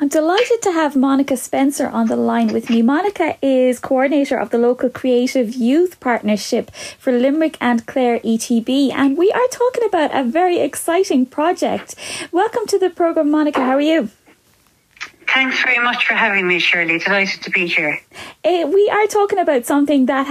I'm delighted to have Monica Spencer on the line with me. Monica is coordinator of the local Creative Youth Partnership for Limerick and Clare ETB, and we are talking about a very exciting project. Welcome to the programme, Monica. How are you? Thanks very much for having me, Shirley. Delighted to be here. We are talking about something that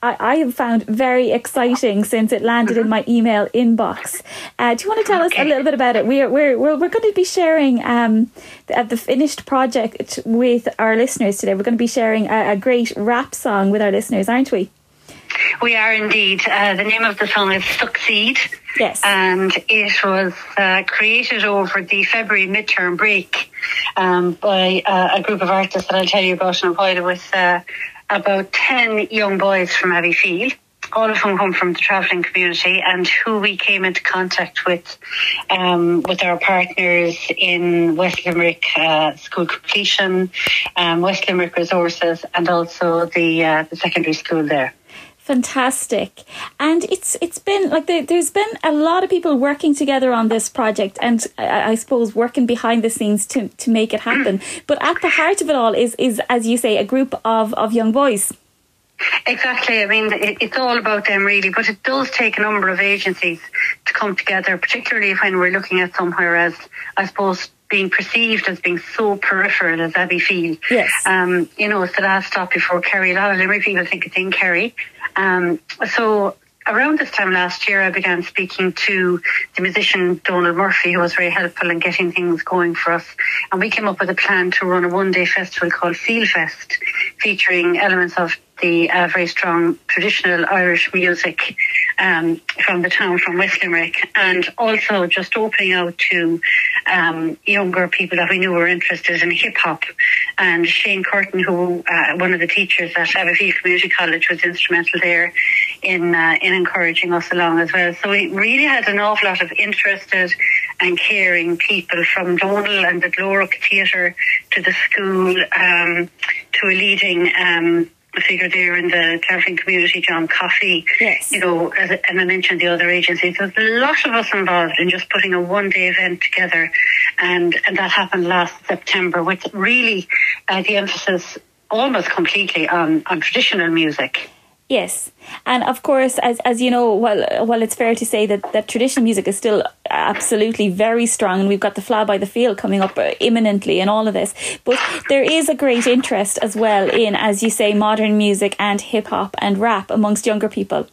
I have found very exciting since it landed in my email inbox. Do you want to tell us a little bit about it? We're going to be sharing the finished project with our listeners today. We're going to be sharing a great rap song with our listeners, aren't we? We are indeed. The name of the song is Succeed. Yes. And it was created over the February midterm break by a group of artists that I'll tell you about in a while, with about 10 young boys from Abbeyfield, all of whom come from the travelling community, and who we came into contact with our partners in West Limerick School Completion, West Limerick Resources, and also the secondary school there. Fantastic. And it's been like there's been a lot of people working together on this project, and I suppose working behind the scenes to make it happen. But at the heart of it all is, as you say, a group of young boys. Exactly. I mean, it's all about them really, but it does take a number of agencies to come together, particularly when we're looking at somewhere as, I suppose, being perceived as being so peripheral as Abbeyfield. Yes. It's the last stop before Kerry. A lot of Limerick people think it's in Kerry. So around this time last year, I began speaking to the musician Donald Murphy, who was very helpful in getting things going for us. And we came up with a plan to run a one-day festival called Feel Fest, featuring elements of the very strong traditional Irish music from the town, from West Limerick, and also just opening out to younger people that we knew were interested in hip-hop. And Shane Curtin, who one of the teachers at Abbeyfield Community College, was instrumental there in encouraging us along as well. So we really had an awful lot of interested and caring people, from Donal and the Gloric Theatre to the school, to a leading figure there in the travelling community, John Coffey. Yes. And I mentioned the other agencies. There's a lot of us involved in just putting a one-day event together, and that happened last September, with really the emphasis almost completely on traditional music. Yes, and of course, as you know, while it's fair to say that traditional music is still absolutely very strong, and we've got the Fly by the Field coming up imminently and all of this, but there is a great interest as well in, as you say, modern music and hip-hop and rap amongst younger people.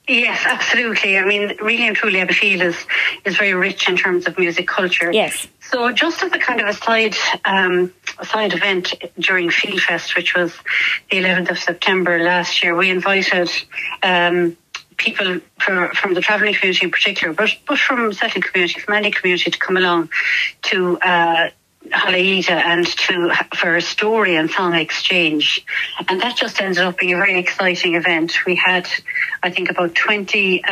Yes, absolutely. I mean, really and truly, Abbeyfield is very rich in terms of music culture. Yes. So just as a kind of a side event during Feel Fest, which was the 11th of September last year, we invited people from the travelling community in particular, but from settling community, from any community, to come along to Halaida and for a story and song exchange. And that just ended up being a very exciting event. We had, I think, about 20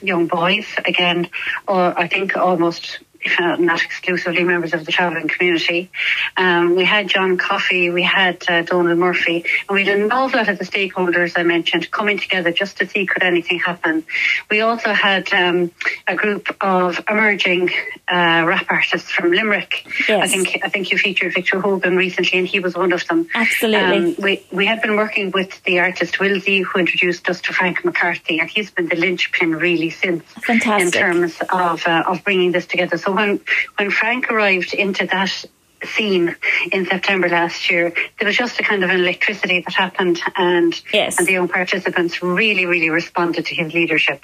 young boys, again, or I think almost, if not exclusively, members of the travelling community. We had John Coffey, we had Donald Murphy, and we had an awful lot of the stakeholders I mentioned coming together just to see could anything happen. We also had a group of emerging rap artists from Limerick. Yes. I think you featured Victor Hogan recently, and he was one of them. Absolutely. We had been working with the artist Wilsey, who introduced us to Frank McCarthy, and he's been the linchpin really since. Fantastic. In terms of bringing this together. So when Frank arrived into that scene in September last year, there was just a kind of an electricity that happened, and the young participants really, really responded to his leadership.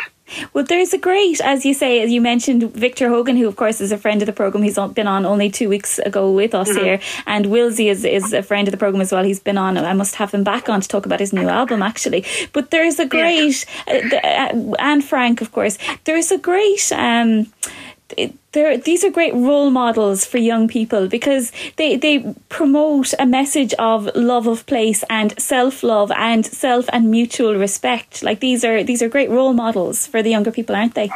Well, there's a great, as you say, as you mentioned, Victor Hogan, who of course is a friend of the programme. He's been on only 2 weeks ago with us here, and Wilsey is a friend of the programme as well. He's been on, I must have him back on to talk about his new album actually. But there's a great, and Frank of course, there's a great these are great role models for young people, because they promote a message of love of place and self-love and self and mutual respect. Like these are great role models for the younger people, aren't they?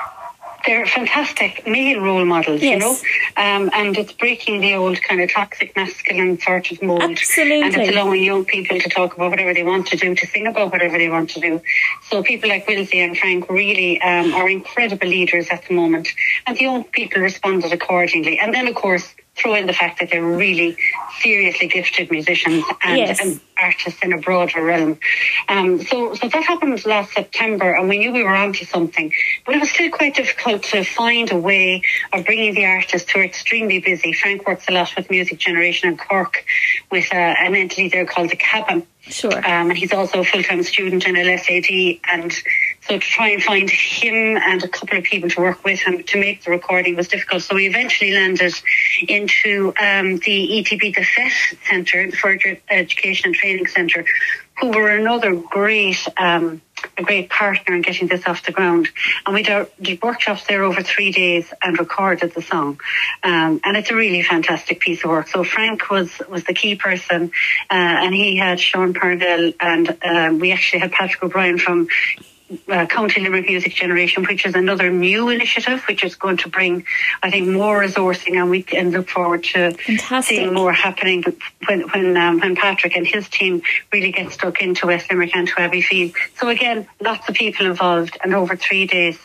They're fantastic male role models, yes. You know, and it's breaking the old kind of toxic masculine sort of mold. Absolutely. And it's allowing young people to talk about whatever they want to do, to sing about whatever they want to do. So people like Wilsey and Frank really are incredible leaders at the moment, and the young people responded accordingly. And then, of course, throw in the fact that they're really seriously gifted musicians and artists in a broader realm. So that happened last September, and we knew we were onto something, but it was still quite difficult to find a way of bringing the artists who are extremely busy. Frank works a lot with Music Generation in Cork with an entity there called The Cabin. Sure. And he's also a full-time student in LSAD, and so to try and find him and a couple of people to work with him to make the recording was difficult. So we eventually landed into the ETB, the FET Centre, the Further Education and Training Centre, who were another great a great partner in getting this off the ground. And we did workshops there over 3 days and recorded the song. And it's a really fantastic piece of work. So Frank was the key person, and he had Sean Parnell, and we actually had Patrick O'Brien from County Limerick Music Generation, which is another new initiative which is going to bring, I think, more resourcing, and we can look forward to seeing more happening when Patrick and his team really get stuck into West Limerick and to Abbeyfield. So again, lots of people involved, and over 3 days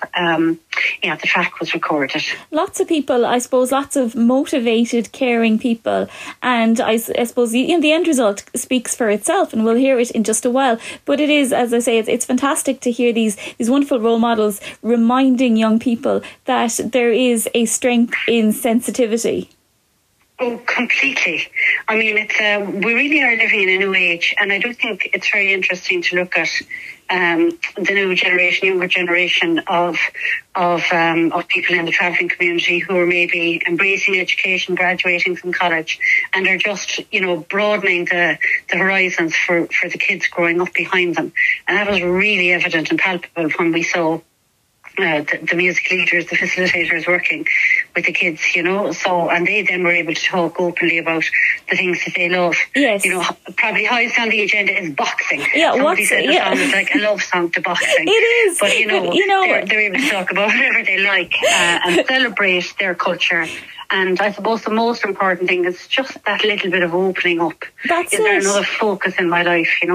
the track was recorded. Lots of people, I suppose, lots of motivated, caring people, and I suppose the end result speaks for itself, and we'll hear it in just a while. But it is, as I say, it's fantastic to hear these wonderful role models reminding young people that there is a strength in sensitivity. Oh, completely. I mean, it's we really are living in a new age, and I do think it's very interesting to look at the new generation, younger generation of people in the travelling community who are maybe embracing education, graduating from college, and are just, broadening the horizons for the kids growing up behind them. And that was really evident and palpable when we saw the music leaders, the facilitators working with the kids, so, and they then were able to talk openly about the things that they love. Yes. Probably highest on the agenda is boxing. Yeah, somebody said the song is like a love song to boxing. It is. But, they're able to talk about whatever they like and celebrate their culture. And I suppose the most important thing is just that little bit of opening up. That's is there another focus in my life, I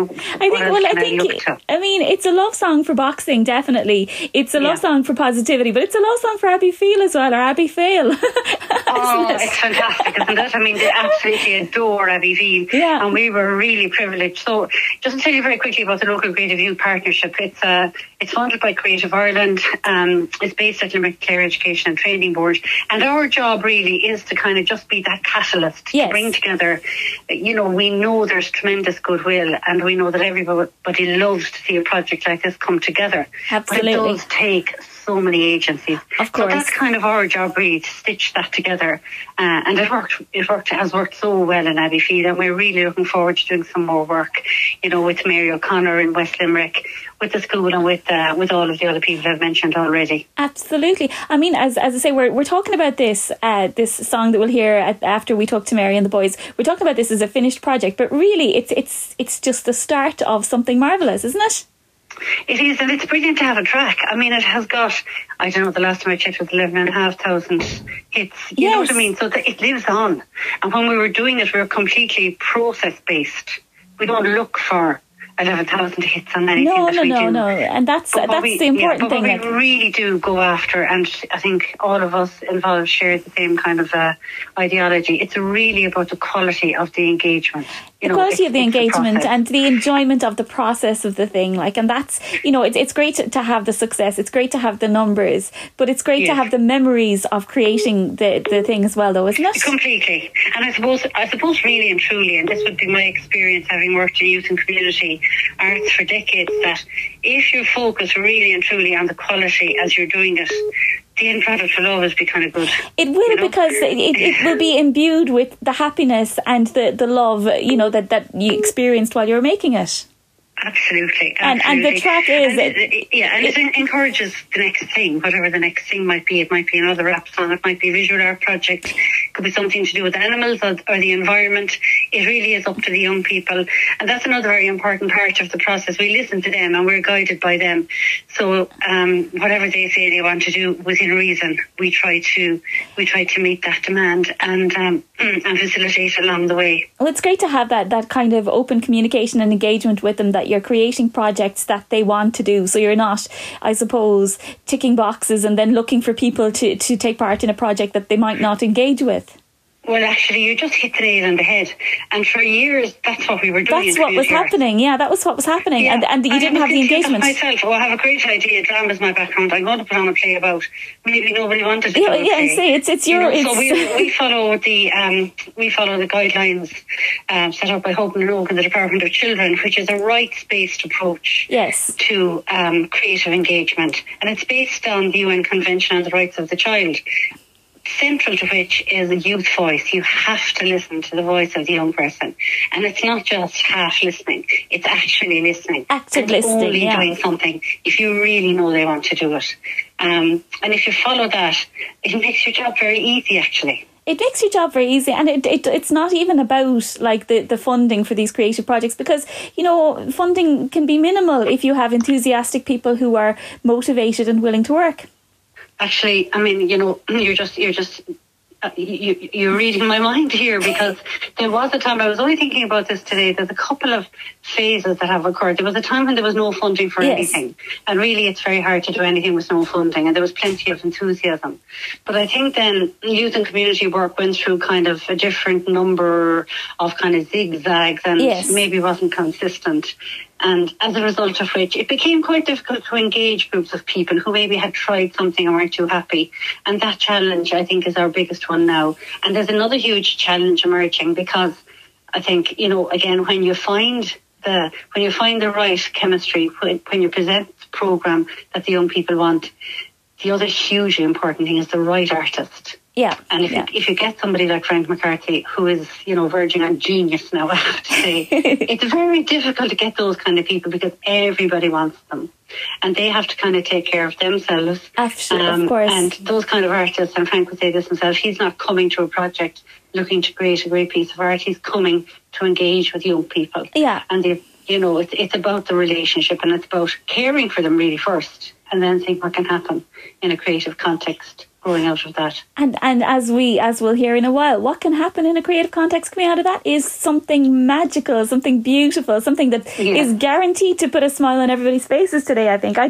mean, it's a love song for boxing, definitely. It's a love song for positivity, but it's a love song for Abbeyfield as well, or Abbeyfield. It's fantastic, isn't it? I mean, they absolutely adore Abbeyfield. Yeah. And we were really privileged. So just to tell you very quickly about the local Creative Youth Partnership, it's funded by Creative Ireland. It's based at Limerick Clare Education and Training Board. And our job really is to kind of just be that catalyst to bring together. We know there's tremendous goodwill, and we know that everybody loves to see a project like this come together. Absolutely. But it does take so many agencies. Of course. So that's kind of our job, really, to stitch that together. And it has worked so well in Abbeyfield, and we're really looking forward to doing some more work, with Mary O'Connor in West Limerick, with the school, and with all of the other people I've mentioned already. Absolutely. I mean, as I say, we're talking about this song that we'll hear after we talk to Mary and the boys. We're talking about this as a finished project, but really it's just the start of something marvellous, isn't it? It is, and it's brilliant to have a track. I mean, it has got, I don't know, the last time I checked was 11,500 hits. You know what I mean? So it lives on. And when we were doing it, we were completely process-based. We don't look for 11,000 hits on anything that we do. No. And that's the important thing. But we really do go after, and I think all of us involved share the same kind of ideology. It's really about the quality of the engagement. The quality of the engagement and the enjoyment of the process of the thing, and that's, it's great to have the success, it's great to have the numbers, but it's great to have the memories of creating the thing as well, though, isn't it? Completely. And I suppose really and truly, and this would be my experience having worked in youth and community arts for decades, that if you focus really and truly on the quality as you're doing it, the end product will always be kind of good. It will, because it will be imbued with the happiness and the love, that you experienced while you were making it. Absolutely. And the track is... And it encourages the next thing, whatever the next thing might be. It might be another rap song, it might be a visual art project, it could be something to do with animals or the environment. It really is up to the young people. And that's another very important part of the process. We listen to them and we're guided by them. So whatever they say they want to do within reason, we try to meet that demand and facilitate along the way. Well, it's great to have that kind of open communication and engagement with them, that you're creating projects that they want to do. So you're not, I suppose, ticking boxes and then looking for people to take part in a project that they might not engage with. Well, actually, you just hit the nail on the head. And for years, that's what we were doing. That's what was happening. Yeah, that was what was happening. Yeah. And you didn't have the engagement. Myself, I have a great idea. Drama's my background. I'm going to put on a play about. Maybe nobody wanted to do a play. Yeah, see, it's your. So we follow the guidelines set up by Hope and Oak and the Department of Children, which is a rights-based approach. Yes. To creative engagement, and it's based on the UN Convention on the Rights of the Child. Central to which is a youth voice. You have to listen to the voice of the young person. And it's not just half listening, it's actually listening. Active listening, only doing something if you really know they want to do it. And if you follow that, it makes your job very easy, actually. It makes your job very easy, and it's not even about like the funding for these creative projects, because funding can be minimal if you have enthusiastic people who are motivated and willing to work. Actually, I mean, you're reading my mind here, because there was a time, I was only thinking about this today, there's a couple of phases that have occurred. There was a time when there was no funding for anything, and really it's very hard to do anything with no funding, and there was plenty of enthusiasm. But I think then youth and community work went through kind of a different number of kind of zigzags, and maybe wasn't consistent. And as a result of which, it became quite difficult to engage groups of people who maybe had tried something and weren't too happy. And that challenge, I think, is our biggest one now. And there's another huge challenge emerging, because I think, again, when you find the right chemistry, when you present the programme that the young people want, the other hugely important thing is the right artist. Yeah. And if you get somebody like Frank McCarthy, who is, verging on genius now, I have to say, it's very difficult to get those kind of people, because everybody wants them. And they have to kind of take care of themselves. Absolutely, of course. And those kind of artists, and Frank would say this himself, he's not coming to a project looking to create a great piece of art. He's coming to engage with young people. Yeah. And, it's about the relationship, and it's about caring for them really first, and then think what can happen in a creative context growing out of that. And as we'll hear in a while, what can happen in a creative context coming out of that is something magical, something beautiful, something that is guaranteed to put a smile on everybody's faces today. I think I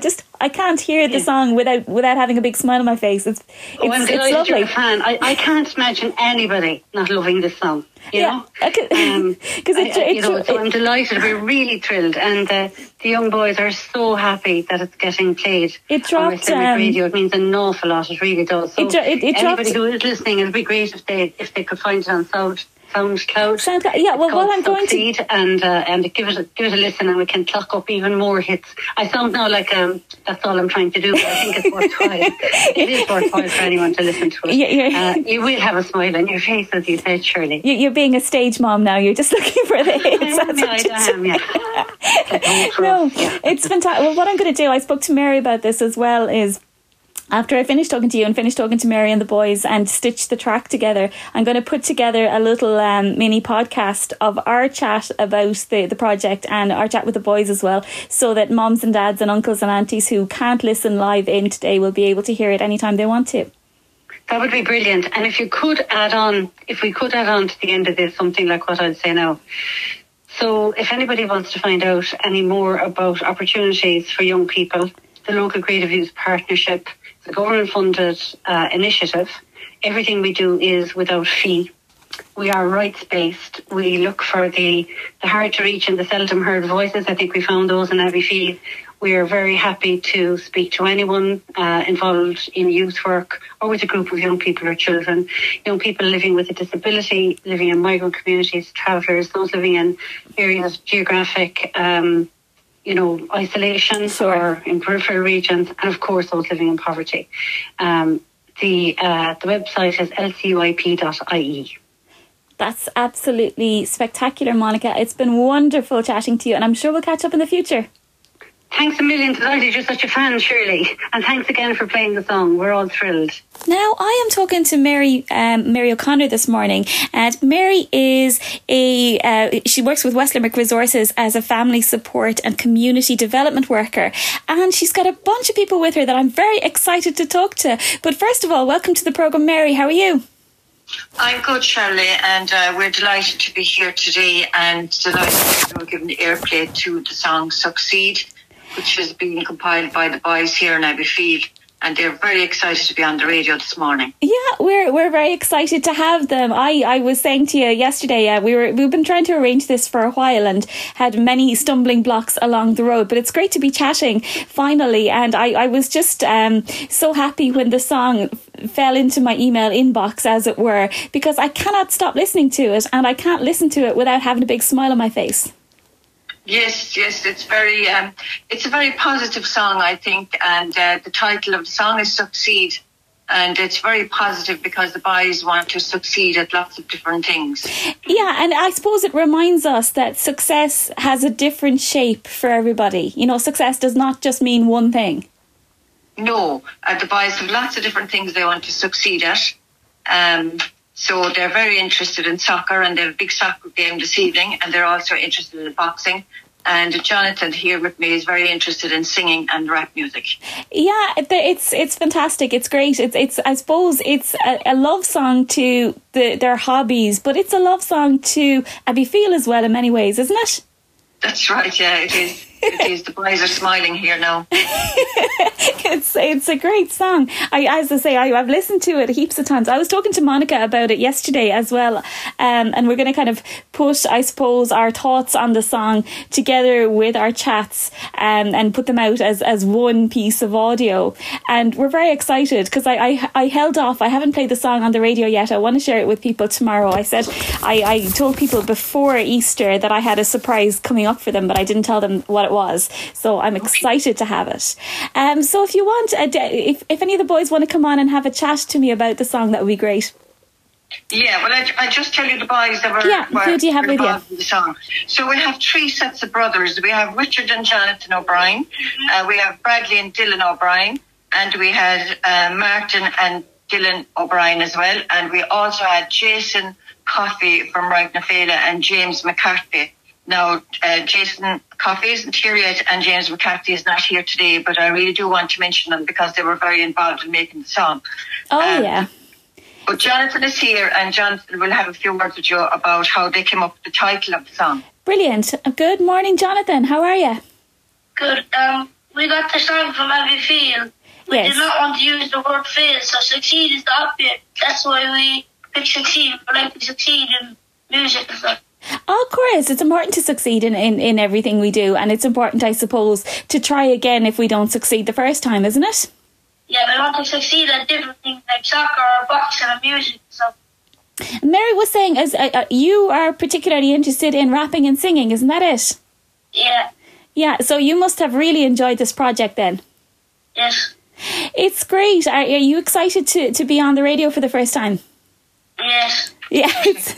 can't hear the song without having a big smile on my face. It's lovely. You're a fan. I can't imagine anybody not loving this song. You know, because so I'm delighted. We're really thrilled, and the young boys are so happy that it's getting played. It dropped on radio. It means an awful lot. It really does. So anybody who is listening, it'd be great if they could find it on SoundCloud. Yeah, well, what I'm going to and give it a listen, and we can clock up even more hits. I sound now like that's all I'm trying to do, but I think it's worthwhile. It is worthwhile for anyone to listen to it. You will have a smile on your face, as you said, Shirley. You're being a stage mom now. You're just looking for the hits. I am. No, it's fantastic. Well, what I'm going to do, I spoke to Mary about this as well, is after I finish talking to you and finish talking to Mary and the boys and stitch the track together, I'm going to put together a little mini podcast of our chat about the project and our chat with the boys as well, so that moms and dads and uncles and aunties who can't listen live in today will be able to hear it anytime they want to. That would be brilliant. And if we could add on to the end of this something like what I'd say now. So if anybody wants to find out any more about opportunities for young people, the Local Creative Youth Partnership, the government-funded initiative, everything we do is without fee. We are rights-based. We look for the hard-to-reach and the seldom-heard voices. I think we found those in Abbeyfeale. We are very happy to speak to anyone involved in youth work or with a group of young people or children, young people living with a disability, living in migrant communities, travellers, those living in areas of geographic isolation or in peripheral regions, and of course those living in poverty. The website is lcyp.ie. That's absolutely spectacular, Monica. It's been wonderful chatting to you, and I'm sure we'll catch up in the future. Thanks a million. Delighted you're such a fan, Shirley. And thanks again for playing the song. We're all thrilled. Now, I am talking to Mary O'Connor this morning. And Mary is she works with West Limerick Resources as a family support and community development worker. And she's got a bunch of people with her that I'm very excited to talk to. But first of all, welcome to the programme, Mary. How are you? I'm good, Shirley, and we're delighted to be here today and delighted to give airplay to the song Succeed, which is being compiled by the boys here in Abbeyfeale. and they're very excited to be on the radio this morning. Yeah, we're very excited to have them. I was saying to you yesterday, we've been trying to arrange this for a while and had many stumbling blocks along the road, but it's great to be chatting finally. And I was just so happy when the song fell into my email inbox, as it were, because I cannot stop listening to it, and I can't listen to it without having a big smile on my face. Yes, it's a very positive song, I think, and the title of the song is Succeed, and it's very positive because the boys want to succeed at lots of different things. Yeah, and I suppose it reminds us that success has a different shape for everybody. You know, success does not just mean one thing. No, the boys have lots of different things they want to succeed at. So they're very interested in soccer, and they have a big soccer game this evening, and they're also interested in boxing. And Jonathan here with me is very interested in singing and rap music. Yeah, it's fantastic. It's great. It's I suppose it's a love song to their hobbies, but it's a love song to Abbeyfeale as well in many ways, isn't it? That's right. Yeah, it is. It is. The boys are smiling here now. It's a great song. As I say, I've listened to it heaps of times. I was talking to Monica about it yesterday as well, and we're going to kind of put, I suppose, our thoughts on the song together with our chats, and put them out as one piece of audio. And we're very excited because I held off. I haven't played the song on the radio yet. I want to share it with people tomorrow. I said I told people before Easter that I had a surprise coming up for them, but I didn't tell them what it was. So I'm excited to have it. So if you want, if any of the boys want to come on and have a chat to me about the song, that would be great. Yeah, well, I just tell you the boys that who do you have with you? In the song. So we have 3 sets of brothers. We have Richard and Jonathan O'Brien. We have Bradley and Dylan O'Brien. And we had Martin and Dylan O'Brien as well. And we also had Jason Coffey from Ragnafela and James McCarthy. Now, Jason Coffey isn't here yet, and James McCarthy is not here today, but I really do want to mention them because they were very involved in making the song. Yeah. But Jonathan is here, and Jonathan will have a few words with you about how they came up with the title of the song. Brilliant. Good morning, Jonathan. How are you? Good. We got the song from Abbeyfeale. We did not want to use the word fail, so succeed is the opposite. That's why we picked succeed. We like to succeed in music and stuff. Oh, of course, it's important to succeed in everything we do, and it's important, I suppose, to try again if we don't succeed the first time, isn't it? Yeah, we want to succeed at different things like soccer or boxing and music and stuff. Mary was saying, as you are particularly interested in rapping and singing, isn't that it? Yeah. Yeah, so you must have really enjoyed this project then. Yes. It's great. Are you excited to be on the radio for the first time? Yes. Yeah, it's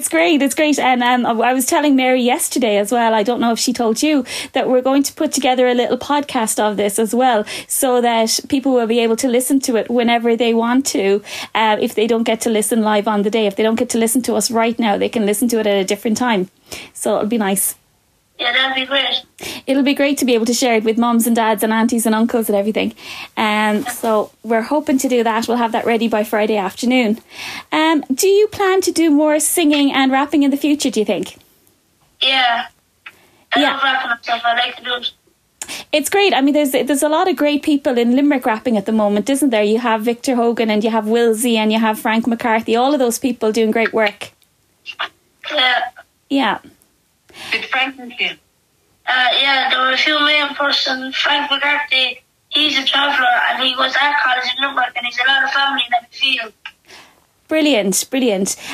great. It's great. And I was telling Mary yesterday as well, I don't know if she told you, that we're going to put together a little podcast of this as well, so that people will be able to listen to it whenever they want to. If they don't get to listen live on the day, if they don't get to listen to us right now, they can listen to it at a different time. So it'll be nice. Yeah, that'd be great. It'll be great to be able to share it with mums and dads and aunties and uncles and everything. So we're hoping to do that. We'll have that ready by Friday afternoon. Do you plan to do more singing and rapping in the future, do you think? Yeah. I love rapping and stuff. I like to do it. It's great. I mean, there's a lot of great people in Limerick rapping at the moment, isn't there? You have Victor Hogan and you have Wilsey and you have Frank McCarthy. All of those people doing great work. Yeah. Yeah. Did Frank meet you? Yeah, there were a few main person. Frank McCarthy, he's a traveller and he was at college in Limerick and he's a lot of family in Abbeyfeale. Brilliant.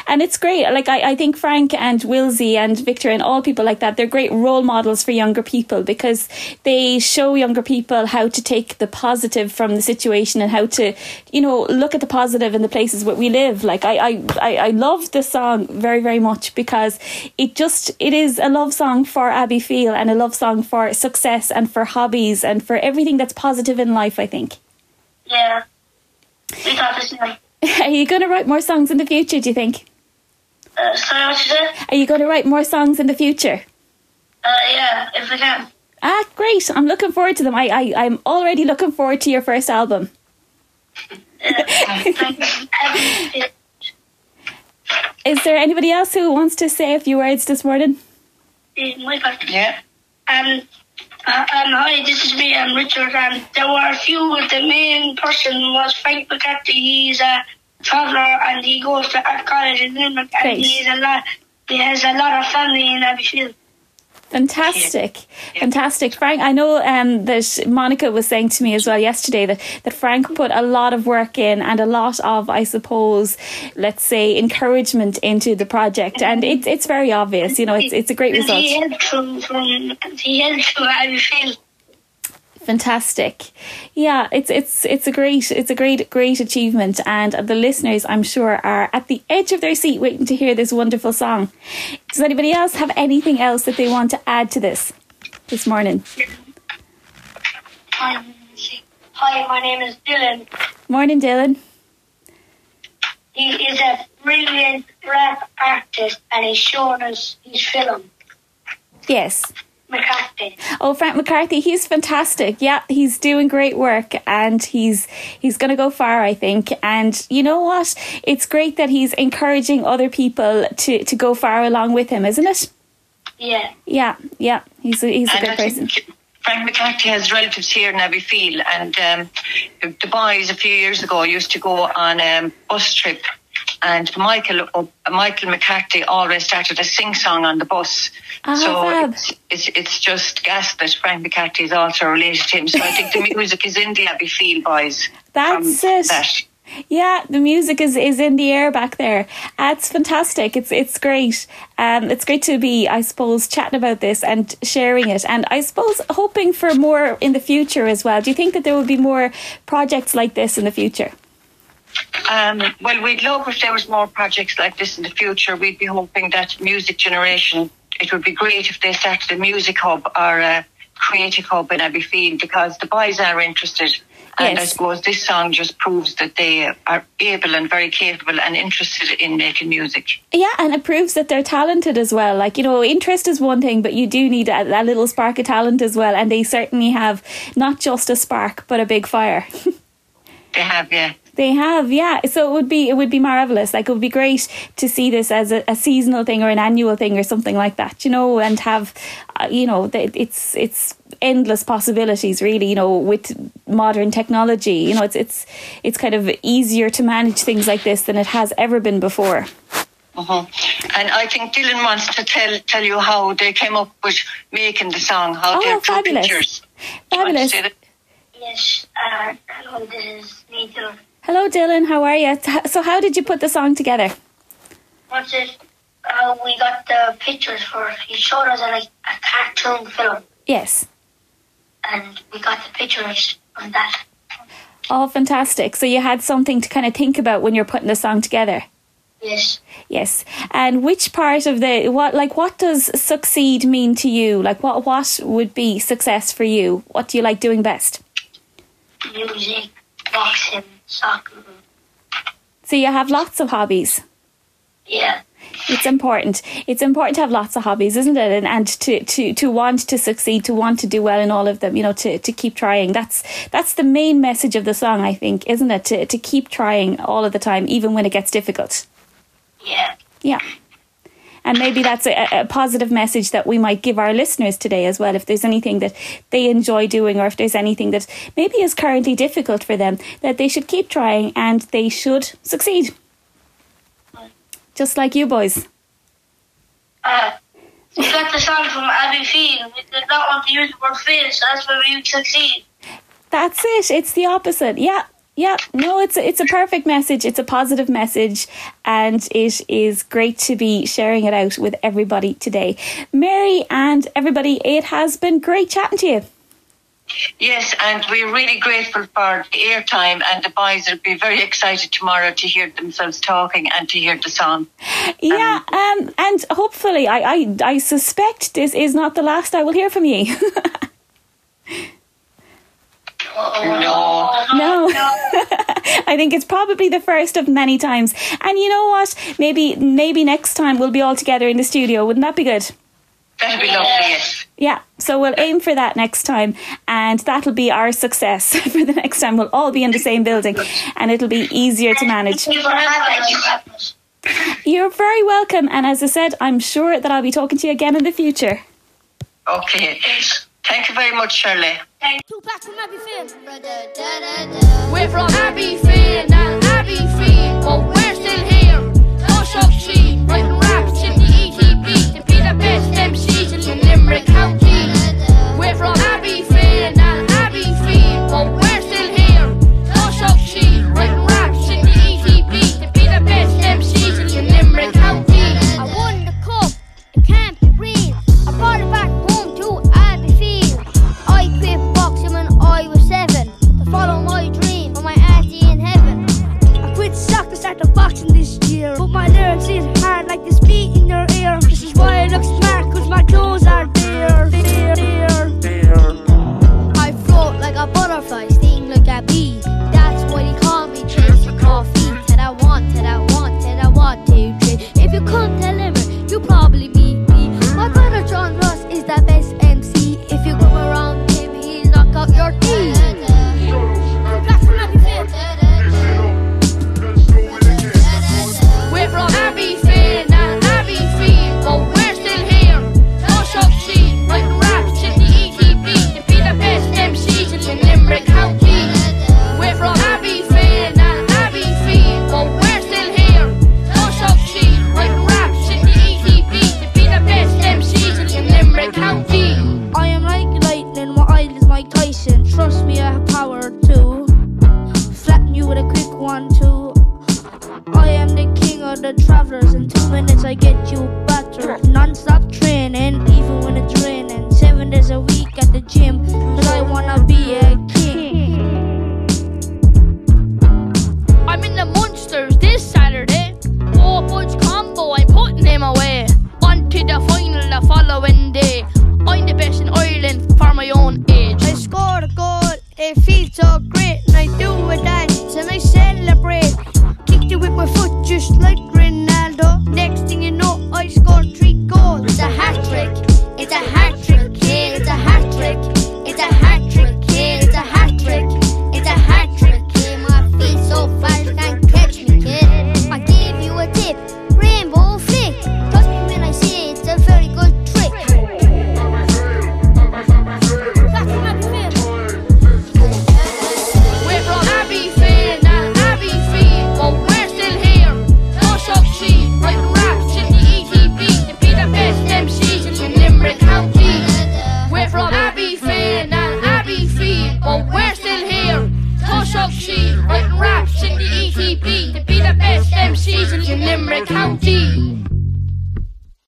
And it's great. Like, I think Frank and Wilsey and Victor and all people like that, they're great role models for younger people because they show younger people how to take the positive from the situation and how to, look at the positive in the places where we live. Like, I love this song very, very much because it is a love song for Abbeyfeale and a love song for success and for hobbies and for everything that's positive in life, I think. Yeah. We thought the same. Are you going to write more songs in the future, do you think? Sorry, what you said? Are you going to write more songs in the future? Yeah, if we can. Great. I'm looking forward to them. I'm already looking forward to your first album. Is there anybody else who wants to say a few words this morning? My part. Yeah. Hi, this is me, I'm Richard, and there were a few. The main person was Frank McCarthy. He's a traveller and he goes to art college in Limerick, and he has a lot of family in Abbeyfield. Fantastic. Fantastic. Frank, I know that Monica was saying to me as well yesterday that Frank put a lot of work in and a lot of, I suppose, let's say, encouragement into the project, and it's very obvious, it's a great result. He helped from Abbeyfield. Fantastic. Yeah, it's a great achievement, and the listeners, I'm sure, are at the edge of their seat waiting to hear this wonderful song. Does anybody else have anything else that they want to add to this morning? Hi, my name is Dylan. Morning, Dylan. He is a brilliant rap artist, and he's shown us his film. Yes. McCarthy. Oh, Frank McCarthy, he's fantastic. Yeah, he's doing great work, and he's going to go far, I think. And you know what? It's great that he's encouraging other people to go far along with him, isn't it? Yeah. Yeah. He's a good person. Frank McCarthy has relatives here in Abbeyfield, and the boys a few years ago used to go on a bus trip, and Michael McCarthy always started a sing-song on the bus. It's just gas that Frank McCarthy is also related to him. So I think the music is in the Abbeyfield boys. That's it. Yeah, the music is in the air back there. It's fantastic. It's great. It's great to be, I suppose, chatting about this and sharing it, and I suppose hoping for more in the future as well. Do you think that there will be more projects like this in the future? Well, we'd love if there was more projects like this in the future. We'd be hoping that Music Generation, it would be great if they started a music hub or a creative hub in Abbeyfield, because the boys are interested. And I suppose this song just proves that they are able and very capable and interested in making music. Yeah, and it proves that they're talented as well. Like, interest is one thing, but you do need a little spark of talent as well. And they certainly have not just a spark, but a big fire. They have, yeah. They have, yeah. So it would be marvellous. Like, it would be great to see this as a seasonal thing or an annual thing or something like that, and have, it's endless possibilities, really, with modern technology. It's kind of easier to manage things like this than it has ever been before. Uh-huh. And I think Dylan wants to tell you how they came up with making the song, how they drew pictures. Fabulous. Yes, hello, this is me, Dylan. Hello, Dylan. How are you? So how did you put the song together? What's it? We got the pictures for it. He showed us a cartoon film. Yes. And we got the pictures on that. Oh, fantastic. So you had something to kind of think about when you're putting the song together? Yes. Yes. And which part of what does succeed mean to you? Like, what would be success for you? What do you like doing best? Music, boxing, soccer. So you have lots of hobbies? Yeah. It's important. It's important to have lots of hobbies, isn't it? And to want to succeed, to want to do well in all of them, to keep trying. That's the main message of the song, I think, isn't it? To keep trying all of the time, even when it gets difficult. Yeah. Yeah. And maybe that's a positive message that we might give our listeners today as well. If there's anything that they enjoy doing, or if there's anything that maybe is currently difficult for them, that they should keep trying and they should succeed. Just like you boys. We got the song from Abbeyfield. We did not want to use the word fail, so that's where we succeed. That's it. It's the opposite. Yeah. No, it's a perfect message. It's a positive message, and it is great to be sharing it out with everybody today. Mary and everybody, it has been great chatting to you. Yes, and we're really grateful for the airtime, and the boys will be very excited tomorrow to hear themselves talking and to hear the song. Yeah, and hopefully, I suspect this is not the last I will hear from you. No. I think it's probably the first of many times. And you know what? Maybe next time we'll be all together in the studio. Wouldn't that be good? That'd be lovely, yes. Yeah, so we'll aim for that next time, and that'll be our success for the next time. We'll all be in the same building, and it'll be easier to manage. You're very welcome, and as I said, I'm sure that I'll be talking to you again in the future. Okay. Thank you very much, Shirley. Two packs from Abbeyfield. We're from Abbeyfield, not Abbeyfield, but we're still here. Push up sheet, writing raps in the ETB to be the best MCs in Limerick County. We're from Abbeyfield, not Abbeyfield, but we're still here. Push up sheet, writing raps in the ETB to be the best MCs in Limerick County. I won the cup, it can't be green. I brought it back home to Abbeyfield. I quit boxing when I was 7 to follow my dream of my auntie in heaven. I quit soccer, started boxing this year, but my lyrics is hard like this beat in your ear. This is why I look smart, cause my clothes are there. I float like a butterfly, sting like a bee. That's why they call me Chase for coffee. Till I want, till I want, till I want to drink. If you come to Limerick, you probably meet me. My brother John Ross is the best MC. If you come around him, he'll knock out your teeth. We're from Abbeyfield, not Abbeyfield, but we're still here. Push up sheet, writing raps in the ETB to be the best MCs in Limerick County. We're from Abbeyfield, not Abbeyfield, but we're still here. Push up sheet, writing raps in the ETB to be the best MCs in Limerick County. I am like lightning, my eye is Mike Tyson. Trust me, I have power too. Flatten you with a quick 1-2. I am the king of the travelers. In 2 minutes I get you